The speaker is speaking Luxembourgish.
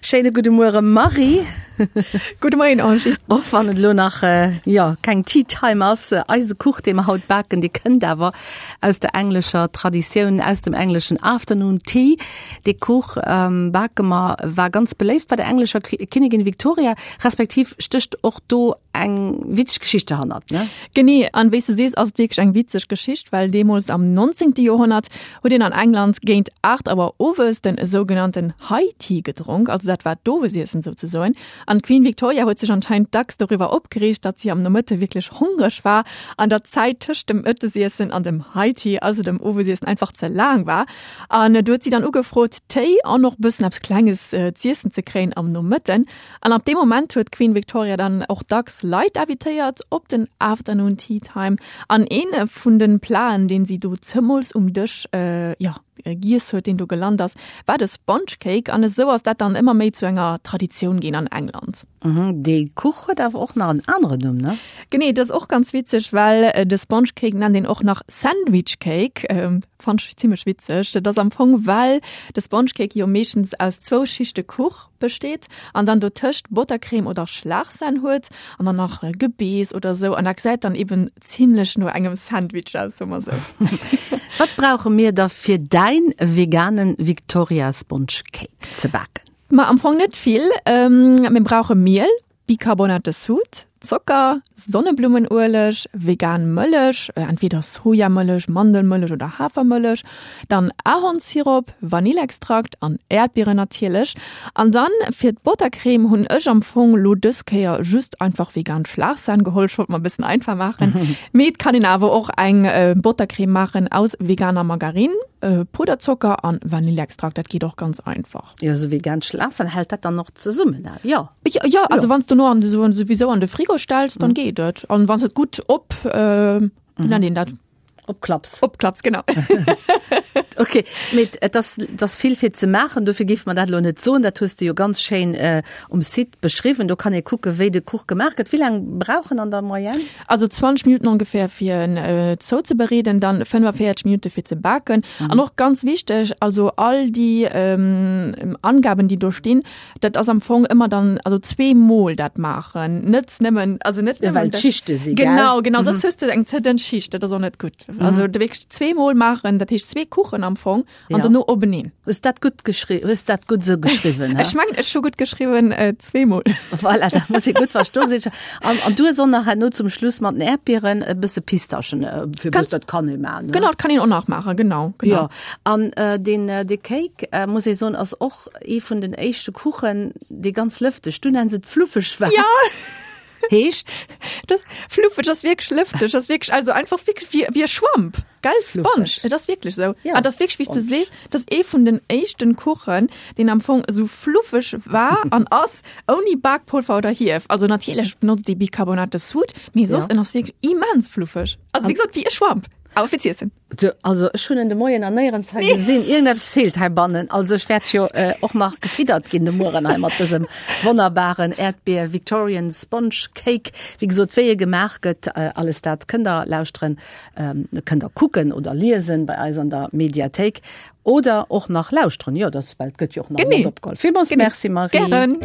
Schéine gudde Muere Marie. Gudde Moien Angie. Och wann et elo nach jo keng Tea Time ass, eise Kuch dee mer haut baken, dee kënnt awer aus der englescher Traditioun, aus dem engleschen Afternoon Tea. Dee Kuch bake mer, war ganz beléift bei der englescher Kinnigin Victoria, respektiv stécht och do eng witzeg Geschicht derhannert, ne? Genee, an wéi s de sees ass et wierklech eng witzeg Geschicht, well deemools am 19. Joerhonnert huet een an England géint 8 Auer owes den sougenannten High Tea gedronk, also dat war d'Owesiessen souzesoen. An d'Queen Victoria huet sech anscheinend dacks doriwwer opgereegt, datt si am Nomëtte wierklech hongreg war an datt d'Zäit tëscht dem Mëttesiessen an dem High Tea, also dem Owesiessen, einfach ze laang war. An do huet si dann ugefrot, Téi an och bëssen eppes Klenges z'iessen ze kréien am Nomëtten. An ab deem Moment huet d'Queen Victoria dann och dacks Leit invitéiert op den Afternoon Tea Time. An een vun de Platen, deen si do zemools um Dësch, jo, giess huet, deen do gelant ass, war de Sponge Cake. An esou ass dat dann ëmmer méi zu enger Traditioun ginn an England. Dee Kuch huet awer och nach en aneren Numm, ne? Genee, dat ass och ganz witzeg, well de Sponge Cake nennt een och nach Sandwich Cake. Fannt ech zimmlech witzeg. Dat ass am Fong, well de Sponge Cake jo meeschtens aus zwou Schichte Kuch besteet an dann dotëscht Bottercreme oder Schlagsahn huet an dann nach Gebeess oder sou an dat gesäit dann eben zimmlech no engem Sandwich aus, soe mer sou. Wat brauche mir da fir däin veganen Victoria Sponge Cake ze baken? Ma am Fong net vill. Mir brauche Miel, Bicarbonate de Soude, Zocker, Sonneblummenueleg, vegan Mëllech, entweder Sojamëllech, Mandelmëllech oder Hafermëllech, dann Ahornsirop, Vanillextrakt an Äerdbieren natierlech. An dann fir d'Bottercreme hunn ech am Fong lo dës Kéier just einfach vegan Schlagsahn geholl, ech wollt mer e bëssen einfach maachen, mee et kann een awer och eng Bottercreme maachen aus veganer Margarine, Puderzocker an Vanillextrakt, dat geet och ganz einfach. Jo, sou vegan Schlagsahn, hält dat dann och zesummen? Jo. Ja, ja, also wann du no an so, sowieso an de Frigo stellst, dann mhm. geht et. An wann et gut op äh, mhm. nennt een dat? Opklaps. Opklaps, genau. okay, mit äh, das, das vill fir ze maachen, dofir géif man dat lo net soen, dat hues du jo ganz schéin äh, um Site beschriwwen. Do kann ee kucke wéi de Kuch gemaach gëtt. Wéi laang brauch en an der Moyenne? Also 20 Minuten ongefähr fir en äh, zouzebereeden, dann 45 Minute fir ze baken. Mhm. An och ganz wichteg, also all déi ähm, Angaben, déi do stinn, Dat ass am Fong ëmmer dann, also zweemol dat maachen, net nëmmen, also net nëmmen. Well d'Schichte si, gell? Genau, genau, soss hues de eng ze dënn Schicht, dat ass och net gutt. Also de wierklech zweemol maachen, dat heescht zwee Kuchen am Fong an dono openeen. Hues dat gutt geschri-, hues dat gutt esou geschriwwen, hä? Ech mengen, ech hu gutt geschriwwen, zweemol. Voilà, dat muss ee gutt verstoen sinn. An, an du hues och nach herno zum Schluss mat den Äerdbieren e bësse Pistaschen, fir Ganz, dat kann ee maachen, ne? Genau, dat kann een och nach maachen, genau, genau. Jo, an deen, dee Cake, muss ee soen, ass och Ee vun den éischte Kuchen, dee ganz lëfteg, du nenns et fluffeg war. Ja. Heescht? Das, fluffeg ass wierklech lëfteg, ass wierklech, also einfach wierklech wéi, wéi e Schwamp, gell? Sponge, et ass wierklech esou. Ja, An dat ass wierklech, wéi s de sees, dat ass ee vun den éischten Kuchen, deen am Fong esou fluffeg war an ass, ouni Bakpolver oder Hief. Also natierlech benotzt ee Bicarbonate de Soude, mee soss, en ass wierklech immens fluffeg. Also wéi gesot, wéi e Schwamp, awer fir z'iessen. So, also ech hunn en de Moien an néierens hei gesinn. Iergendeppes feelt heibannen. Also ech wäert jo äh, och nach gefiddert ginn de Mueren hei mat dësem wonnerbaren Äerdbier Victorian Sponge Cake. Wéi gesot, wéi e gemaach gëtt, äh, alles dat kënnt der lauschteren, ähm, kënnt der kucken oder liesen bei eis an der Mediathéik oder och nach lauschteren. Jo, dat well et gëtt jo och nach Genee. mat opgeholl. Villmools Genee. Merci Marie. Gären.